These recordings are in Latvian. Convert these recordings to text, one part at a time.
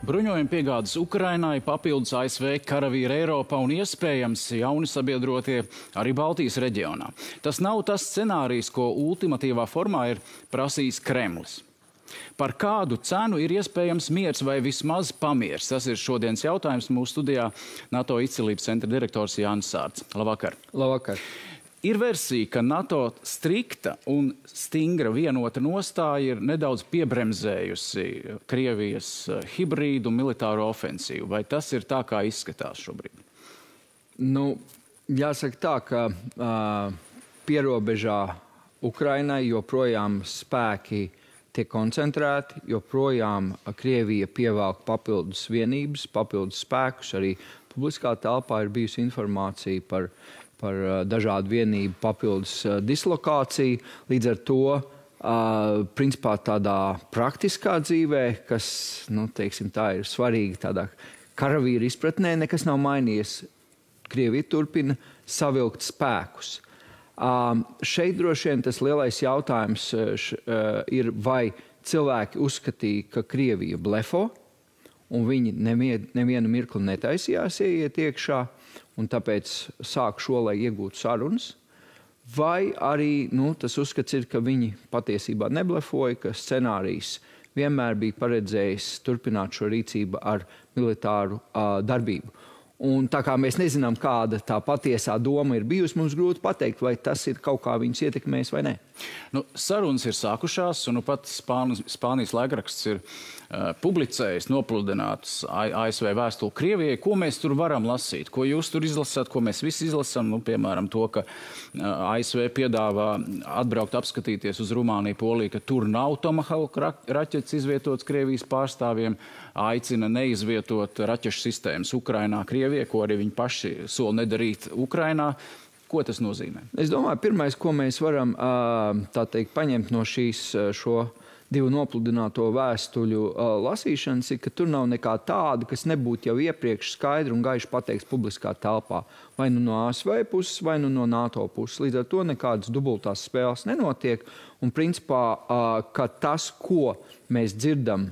Bruņojuma piegādes Ukrainai, papildus ASV karavīri Eiropā un iespējams jauni sabiedrotie arī Baltijas reģionā. Tas nav tas scenārijs, ko ultimatīvā formā ir prasījis Kremlis. Par kādu cenu ir iespējams miers vai vismaz pamiers? Tas ir šodienas jautājums mūsu studijā NATO izcilības centra direktors Jānis Sārts. Labvakar! Labvakar! Ir versija, ka NATO strikta un stingra vienota nostāja ir nedaudz piebremzējusi Krievijas hibrīdu militāro ofensīvu. Vai tas ir tā, kā izskatās šobrīd? Nu, jāsaka tā, ka pierobežā Ukrainai joprojām spēki tiek koncentrēti, joprojām Krievija pievelk papildus vienības, papildus spēkus. Arī publiskā telpā ir bijusi informācija par dažādu vienību papildus dislokāciju. Līdz ar to, principā tādā praktiskā dzīvē, kas, nu, teiksim, tā ir svarīga tādā karavīra izpratnē, nekas nav mainījies. Krievija turpina savilkt spēkus. Šeit droši vien tas lielais jautājums ir, vai cilvēki uzskatīja, ka Krievija blefo, un viņi nevienu mirkli netaisījās ieiet iekšā, un tāpēc sāk šo, lai iegūtu sarunas, vai arī tas uzskats ir, ka viņi patiesībā neblefoja, ka scenārijs vienmēr bija paredzējis turpināt šo rīcību ar militāru darbību. Un tā kā mēs nezinām, kāda tā patiesā doma ir bijusi, mums grūti pateikt, vai tas ir kaut kā viņus ietekmējis vai nē. Nu, sarunas ir sākušās, un pat Spānijas laikraksts ir publicējis nopludinātus ASV vēstuli Krievijai. Ko mēs tur varam lasīt? Ko jūs tur izlasāt, ko mēs visi izlasām? Nu, piemēram, to, ka ASV piedāvā atbraukt apskatīties uz Rumāniju, Poliju, ka tur nav Tomahawk raķetes izvietotas Krievijas pārstāvjiem, aicina neizvietot raķešu sistēmas Ukrainā, Krievijai, ko arī viņi paši sola nedarīt Ukrainā. Ko tas nozīmē? Es domāju, pirmais, ko mēs varam tā teikt, paņemt no šo divu nopludināto vēstuļu lasīšanas, ir, ka tur nav nekā tāda, kas nebūtu jau iepriekš skaidri un gaiši pateikts publiskā telpā. Vai nu no ASV puses, vai nu no NATO puses. Līdz ar to nekādas dubultās spēles nenotiek. Un principā, ka tas, ko mēs dzirdam,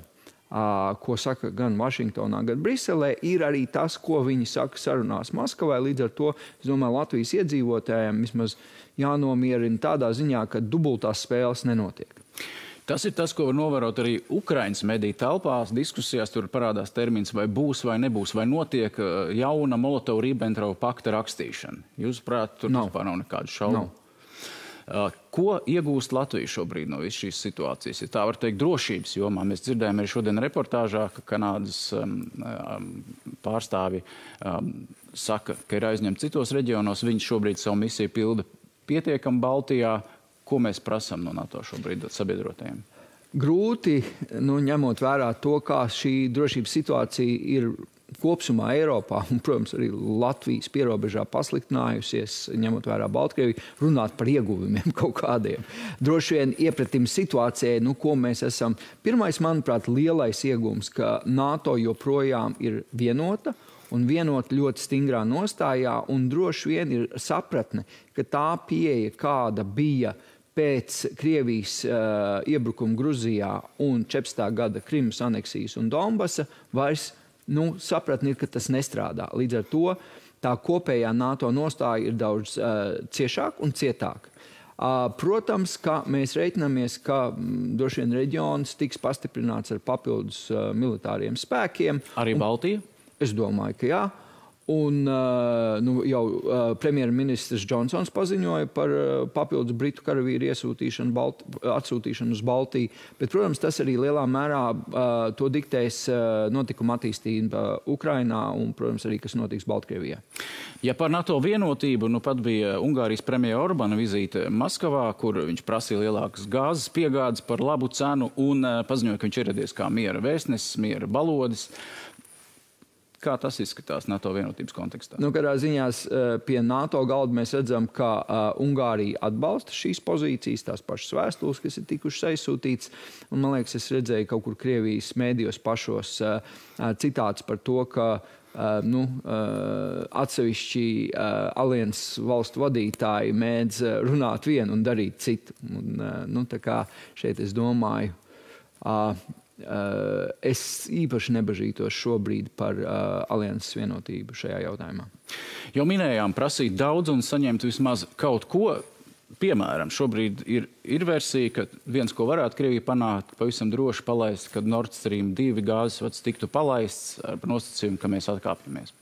ko saka gan Vašingtonā, gan Briselē, ir arī tas, ko viņi saka sarunās Maskavai. Līdz ar to, es domāju, Latvijas iedzīvotājiem vismaz jānomierina tādā ziņā, ka dubultās spēles nenotiek. Tas ir tas, ko var novērot arī Ukrainas mediju telpās. Diskusijās tur parādās termins, vai būs vai nebūs, vai notiek jauna Molotova-Ribbentrova pakta rakstīšana. Jūsuprāt, tur vispār nav nekādu šaubu? Ko iegūst Latvija šobrīd no visas šīs situācijas? Ja tā var teikt, drošības jomā. Mēs dzirdējām arī šodien reportāžā, ka Kanādas pārstāvi saka, ka ir aizņemti citos reģionos. Viņi šobrīd savu misiju pilda pietiekami Baltijā. Ko mēs prasām no NATO šobrīd sabiedrotajiem? Grūti, ņemot vērā to, kā šī drošības situācija ir kopsumā Eiropā un, protams, arī Latvijas pierobežā pasliktinājusies, ņemot vērā Baltkrieviju, runāt par ieguvumiem kaut kādiem. Droši vien iepratim situācijai, ko mēs esam. Pirmais, manuprāt, lielais ieguvums, ka NATO joprojām ir vienota un vienot ļoti stingrā nostājā, un droši vien ir sapratne, ka tā pieeja, kāda bija pēc Krievijas iebrukuma Gruzijā un 14. gada Krimas aneksijas un Donbasa, vairs sapratni ir, ka tas nestrādā. Līdz ar to tā kopējā NATO nostāja ir daudz ciešāk un cietāk. Protams, ka mēs reiķinamies, ka droši vien reģions tiks pastiprināts ar papildus militāriem spēkiem. Arī Baltija? Es domāju, ka jā. Un jau premjerministrs Džonsons paziņoja par papildus britu karavīru atsūtīšanu uz Baltiju. Bet, protams, tas arī lielā mērā to diktēs notikuma attīstība Ukrainā un, protams, arī, kas notiks Baltkrievijā. Ja par NATO vienotību, pat bija Ungārijas premjera Orbana vizīte Maskavā, kur viņš prasīja lielākas gāzes piegādes par labu cenu un paziņoja, ka viņš ieradies kā miera vēstnesis, miera balodis. Kā tas izskatās NATO vienotības kontekstā? Kādā ziņā pie NATO galda mēs redzam, ka Ungārija atbalsta šīs pozīcijas, tās pašas vēstules, kas ir tikušas aizsūtītas. Un, man liekas, es redzēju kaut kur Krievijas mēdījos pašos citāts par to, ka atsevišķi alianses valstu vadītāji mēdz runāt vienu un darīt citu. Un, tā kā šeit es domāju, es īpaši nebažītos šobrīd par alianses vienotību šajā jautājumā. Jau minējām prasīt daudz un saņemt vismaz kaut ko. Piemēram, šobrīd ir versija, ka viens, ko varētu Krievija panākt, pavisam droši palaist, kad Nord Stream 2 gāzes vads tiktu palaists ar nosacījumu, ka mēs atkāpjamies.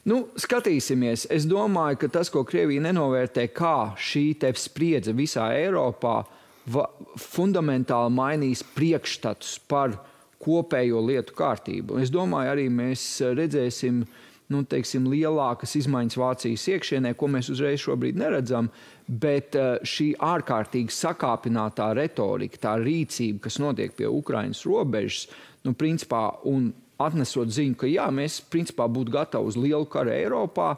Nu, skatīsimies. Es domāju, ka tas, ko Krievija nenovērtē, kā šī te spriedze visā Eiropā fundamentāli mainīs priekšstatus par kopējo lietu kārtību. Es domāju, arī mēs redzēsim lielākas izmaiņas Vācijas iekšienē, ko mēs uzreiz šobrīd neredzam, bet šī ārkārtīgi sakāpinātā retorika, tā rīcība, kas notiek pie Ukrainas robežas, principā, un atnesot ziņu, ka jā, mēs principā būtu gatavi uz lielu karu Eiropā,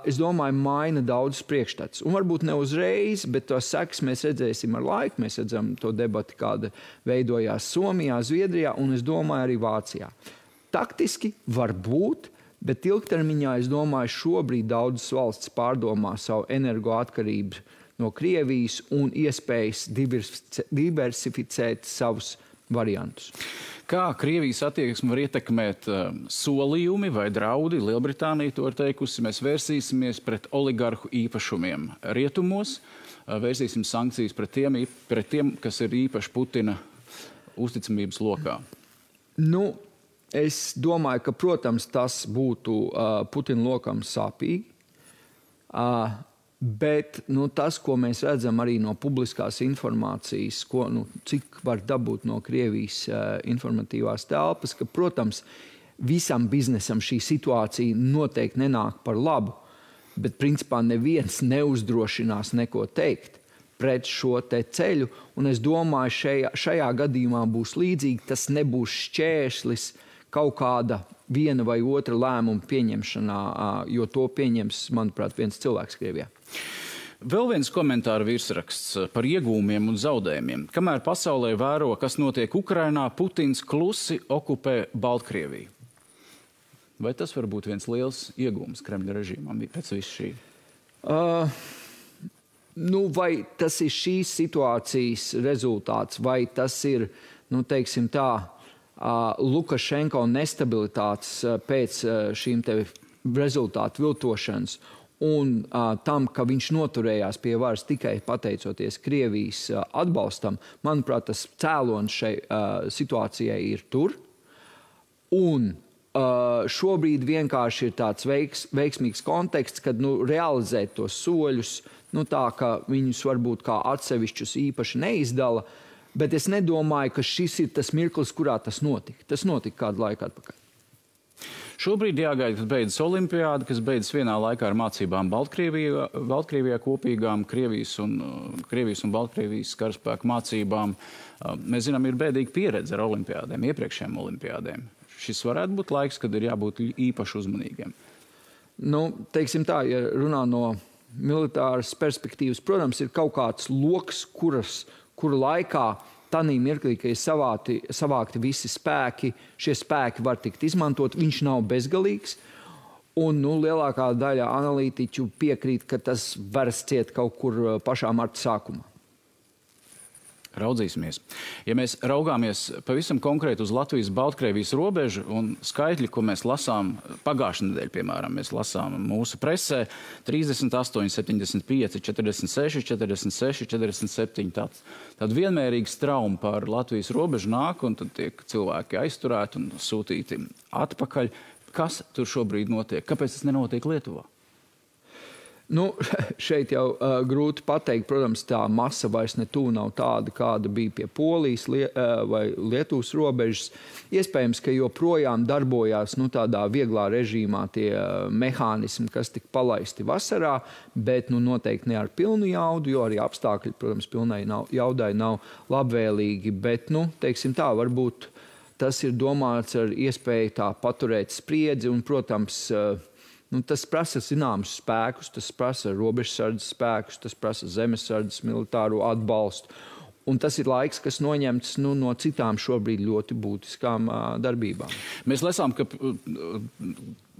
es domāju, maina daudz priekšstats. Un varbūt ne uzreiz, bet to sekas mēs redzēsim ar laiku. Mēs redzam to debati, kāda veidojās Somijā, Zviedrijā un, es domāju, arī Vācijā. Taktiski var būt, bet ilgtermiņā, es domāju, šobrīd daudzas valsts pārdomā savu energoatkarību no Krievijas un iespējas diversificēt savus variantus. Kā Krievijas attieksmi var ietekmēt solījumi vai draudi? Lielbritānija to ir teikusi. Mēs vērsīsimies pret oligarhu īpašumiem rietumos, vērsīsim sankcijas pret tiem, kas ir īpaši Putina uzticamības lokā. Es domāju, ka, protams, tas būtu Putina lokam sāpīgi, bet tas, ko mēs redzam arī no publiskās informācijas, cik var dabūt no Krievijas informatīvās telpas, ka, protams, visam biznesam šī situācija noteikti nenāk par labu, bet, principā, neviens neuzdrošinās neko teikt pret šo te ceļu, un es domāju, šajā gadījumā būs līdzīgi, tas nebūs šķērslis kaut kāda viena vai otra lēmuma pieņemšanā, jo to pieņems, manuprāt, viens cilvēks Krievijā. Vēl viens komentāru virsraksts par iegūmiem un zaudējumiem. Kamēr pasaulē vēro, kas notiek Ukrainā, Putins klusi okupē Baltkrieviju. Vai tas var būt viens liels iegūms Kremļa režīmam pēc visu šī? Vai tas ir šīs situācijas rezultāts, vai tas ir, teiksim tā, Lukašenko nestabilitātes pēc šīm te rezultātu viltošanas un tam, ka viņš noturējās pie varas tikai pateicoties Krievijas atbalstam, manuprāt, tas cēlonis šai situācijai ir tur. Un šobrīd vienkārši ir tāds veiksmīgs konteksts, kad realizēt tos soļus, tā, ka viņus varbūt kā atsevišķus īpaši neizdala, bet es nedomāju, ka šis ir tas mirklis, kurā tas notika. Tas notika kādu laiku atpakaļ. Šobrīd jāgaida, kad beidzas olimpiāda, kas beidzas vienā laikā ar mācībām Baltkrievijā kopīgām, Krievijas un Baltkrievijas karaspēku mācībām. Mēs zinām, ir bēdīga pieredze ar olimpiādēm, iepriekšējām olimpiādēm. Šis varētu būt laiks, kad ir jābūt īpaši uzmanīgiem. Teiksim tā, ja runā no militāras perspektīvas, protams, ir kaut kāds loks, kuru laikā tanī mirklī, ka ir savākti visi spēki, šie spēki var tikt izmantot, viņš nav bezgalīgs, un lielākā daļa analītiķu piekrīt, ka tas var ciet kaut kur pašā marta sākumā. Raudzīsimies. Ja mēs raugāmies pavisam konkrēti uz Latvijas-Baltkrievijas robežu un skaitļi, ko mēs lasām pagājušajā nedēļā, piemēram, mēs lasām mūsu presē 38, 75, 46, 46, 47. Tad vienmērīgi straumi par Latvijas robežu nāk, un tad tiek cilvēki aizturēti un sūtīti atpakaļ. Kas tur šobrīd notiek? Kāpēc tas nenotiek Lietuvā? Šeit jau grūti pateikt. Protams, tā masa vairs nav tāda, kāda bija pie Polijas vai Lietuvas robežas. Iespējams, ka joprojām darbojās tādā vieglā režīmā tie mehānismi, kas tika palaisti vasarā, bet noteikti ne ar pilnu jaudu, jo arī apstākļi, protams, pilnai jaudai nav labvēlīgi. Bet, teiksim tā, varbūt tas ir domāts ar iespēju tā paturēt spriedzi un, protams, tas prasa zināmus spēkus, tas prasa robežsardzes spēkus, tas prasa zemesardzes militāro atbalstu. Un tas ir laiks, kas noņemts no citām šobrīd ļoti būtiskām darbībām. Mēs lasām, ka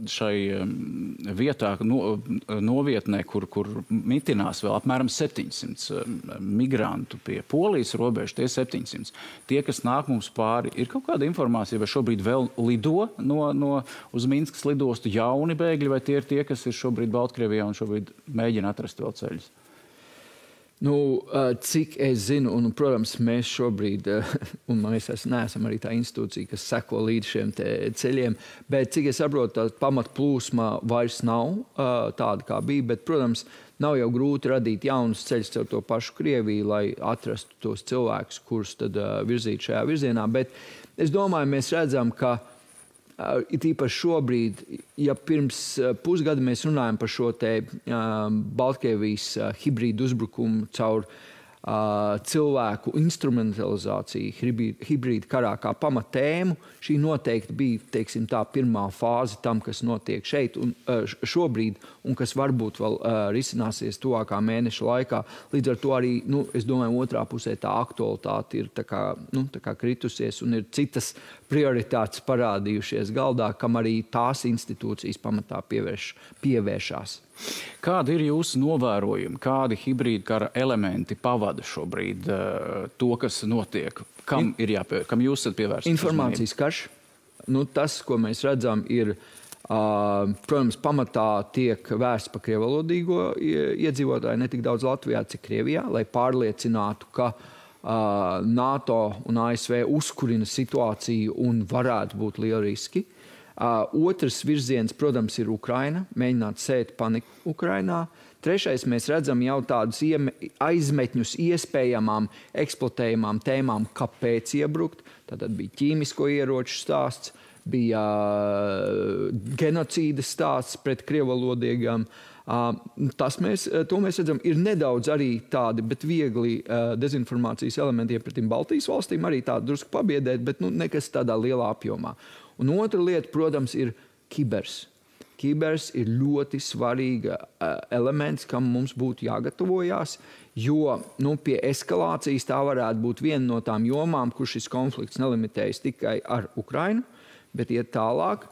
šai vietā, novietnē, kur mitinās vēl apmēram 700 migrantu pie Polijas robežas, tie 700. Tie, kas nāk mums pāri, ir kaut kāda informācija, vai šobrīd vēl lido uz Minskas lidostu jauni bēgļi, vai tie ir tie, kas ir šobrīd Baltkrievijā un šobrīd mēģina atrast vēl ceļus? Cik es zinu, un, protams, mēs šobrīd, un mēs neesam arī tā institūcija, kas seko līdz šiem ceļiem, bet cik es saprotu, tā pamatplūsma vairs nav tāda, kā bija, bet, protams, nav jau grūti radīt jaunus ceļus caur to pašu Krieviju, lai atrastu tos cilvēkus, kurus tad virzīt šajā virzienā, bet es domāju, mēs redzam, ka it īpaši šobrīd, ja pirms pusgada mēs runājam par šo te Baltkrievijas hibrīdu uzbrukumu caur cilvēku instrumentalizāciju hibrīda karā kā pamatēmu, šī noteikti bija, teiksim tā, pirmā fāze tam, kas notiek šeit un šobrīd, un kas varbūt vēl risināsies tuvākā mēneša laikā. Līdz ar to arī, es domāju, otrā pusē tā aktualitāte ir tā kā kritusies un ir citas prioritātes parādījušies galdā, kam arī tās institūcijas pamatā pievēršās. Kādi ir jūsu novērojumi? Kādi hibrīda kara elementi pavada šobrīd to, kas notiek? Kam jūs esat pievērsts? Informācijas karš. Tas, ko mēs redzam, ir, protams, pamatā tiek vērsts pa krievalodīgo iedzīvotāju, ne tik daudz Latvijā, cik Krievijā, lai pārliecinātu, ka NATO un ASV uzkurina situāciju un varētu būt lieli riski. Otrs virziens, protams, ir Ukraina, mēģināt sēt paniku Ukrainā. Trešais, mēs redzam jau tādus aizmetņus iespējamām, eksploatējamām tēmām, kāpēc iebrukt. Tātad bija ķīmisko ieroču stāsts, bija genocīda stāsts pret krievalodīgām. To mēs redzam, ir nedaudz arī tādi, bet viegli dezinformācijas elementiem pret Baltijas valstīm, arī tādi drusku pabiedēt, bet nekas tādā lielā apjomā. Un otra lieta, protams, ir kibers. Kibers ir ļoti svarīga elements, kam mums būtu jāgatavojās, jo pie eskalācijas tā varētu būt viena no tām jomām, kur šis konflikts nelimitējas tikai ar Ukrainu, bet iet tālāk.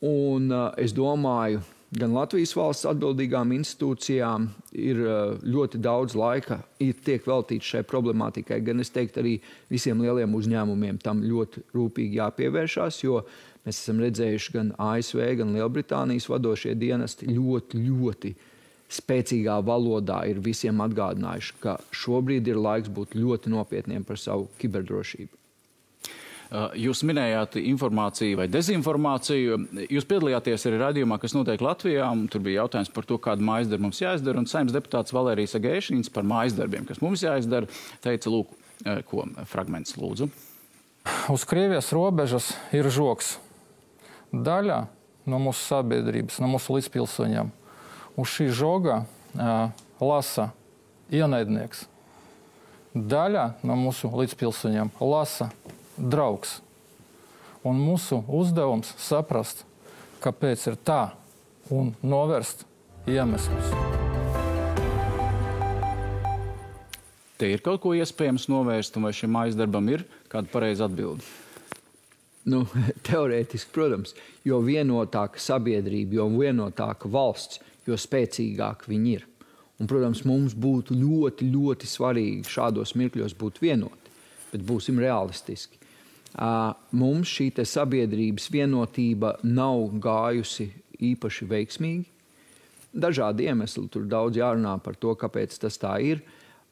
Un es domāju, gan Latvijas valsts atbildīgām institūcijām ir ļoti daudz laika tiek veltīts šai problemātikai, gan es teiktu arī visiem lieliem uzņēmumiem tam ļoti rūpīgi jāpievēršās, jo mēs esam redzējuši gan ASV, gan Lielbritānijas vadošie dienesti ļoti spēcīgā valodā ir visiem atgādinājuši, ka šobrīd ir laiks būt ļoti nopietniem par savu kiberdrošību. Jūs minējāt informāciju vai dezinformāciju. Jūs piedalījāties arī raidījumā, kas notiek Latvijā, un tur bija jautājums par to, kādu mājasdarbu mums jāizdara, un Saeimas deputāts Valērijas Agēšīns par mājasdarbiem, kas mums jāizdara, teica, lūk, ko fragments lūdzu. Uz Krievijas robežas ir žoks. Daļa no mūsu sabiedrības, no mūsu līdzpilsoņiem. Uz šī žoga lasa ienaidnieks. Daļa no mūsu līdzpilsoņiem lasa draugs. Un mūsu uzdevums saprast, kāpēc ir tā, un novērst iemeslus. Te ir kaut ko iespējams novērst, un vai šim mājasdarbam ir kāda pareiza atbilde? Teorētiski, protams, jo vienotāka sabiedrība, jo vienotāka valsts, jo spēcīgāk viņi ir. Un, protams, mums būtu ļoti svarīgi šādos mirkļos būt vienoti, bet būsim realistiski. Mums šī sabiedrības vienotība nav gājusi īpaši veiksmīgi. Dažādi iemesli, tur daudz jārunā par to, kāpēc tas tā ir.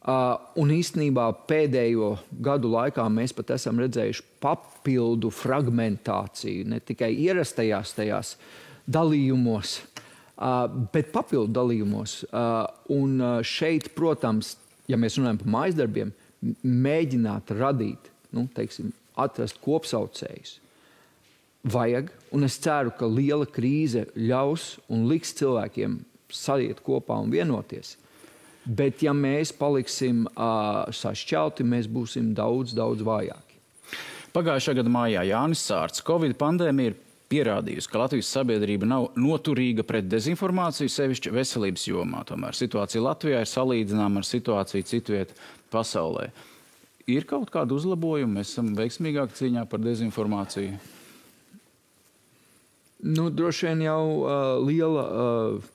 Un īstenībā pēdējo gadu laikā mēs pat esam redzējuši papildu fragmentāciju, ne tikai ierastajās tajās dalījumos, bet papildu dalījumos. Un šeit, protams, ja mēs runājam par mājasdarbiem, mēģināt radīt, atrast kopsaucējus. Vajag, un es ceru, ka liela krīze ļaus un liks cilvēkiem saliet kopā un vienoties. Bet ja mēs paliksim sašķelti, mēs būsim daudz vājāki. Pagājušā gada mājā Jānis Sārts. Covid pandēmija ir pierādījusi, ka Latvijas sabiedrība nav noturīga pret dezinformāciju, sevišķi veselības jomā. Tomēr situācija Latvijā ir salīdzināma ar situāciju citviet pasaulē. Ir kaut kāda uzlabojuma? Mēs esam veiksmīgāki cīņā par dezinformāciju? Nu, droši vien jau liela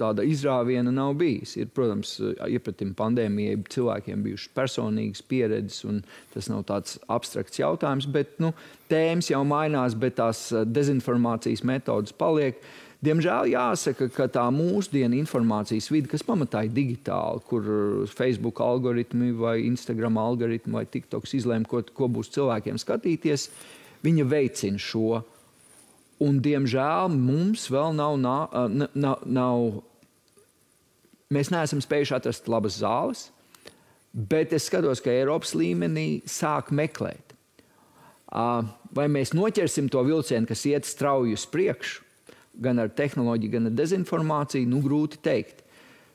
tāda izrāviena nav bijis. Ir, protams, iepratim pandēmijai cilvēkiem bijušas personīgas pieredzes, un tas nav tāds abstrakts jautājums, bet tēmas jau mainās, bet tās dezinformācijas metodas paliek. Diemžēl jāsaka, ka tā mūsdienu informācijas vide, kas pamatā ir digitāla, kur Facebook algoritmi vai Instagram algoritmi vai TikToks izlēma, ko būs cilvēkiem skatīties, viņa veicina šo. Un, diemžēl, mums vēl mēs neesam spējuši atrast labas zāles, bet es skatos, ka Eiropas līmenī sāk meklēt. Vai mēs noķersim to vilcienu, kas iet strauji uz priekšu, gan ar tehnoloģiju, gan ar dezinformāciju, grūti teikt.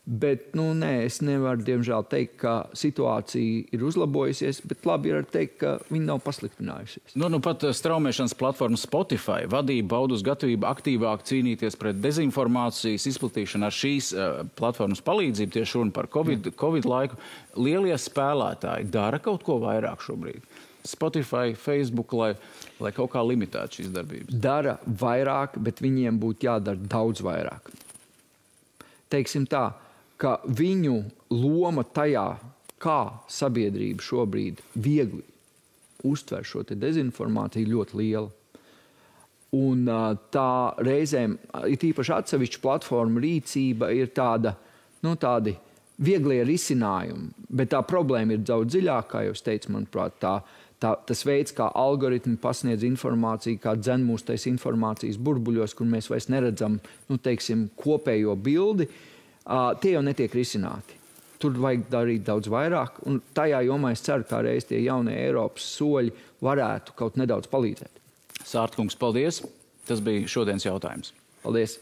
Bet, es nevaru, diemžēl, teikt, ka situācija ir uzlabojusies, bet labi ir teikt, ka viņa nav pasliktinājusies. Pat straumēšanas platforma Spotify vadība paudus gatavību aktīvāk cīnīties pret dezinformācijas izplatīšanu ar šīs platformas palīdzību, tieši runa par Covid laiku. Lielie spēlētāji dara kaut ko vairāk šobrīd? Spotify, Facebook, lai kaut kā limitētu šīs darbības? Dara vairāk, bet viņiem būtu jādara daudz vairāk. Teiksim tā, ka viņu loma tajā, kā sabiedrība šobrīd viegli uztver šo te dezinformāciju, ļoti liela. Un tā reizēm, ir īpaši atsevišķa platforma rīcība, ir tādi vieglie risinājumi, bet tā problēma ir daudz dziļākā, kā jau es teicu, manuprāt, tas veids, kā algoritmi pasniedz informāciju, kā dzen mūs tais informācijas burbuļos, kur mēs vairs neredzam, kopējo bildi, tie jau netiek risināti. Tur vajag darīt daudz vairāk, un tajā jomā es ceru, kā reiz tie jaunie Eiropas soļi varētu kaut nedaudz palīdzēt. Sārta kungs, paldies! Tas bija šodienas jautājums. Paldies!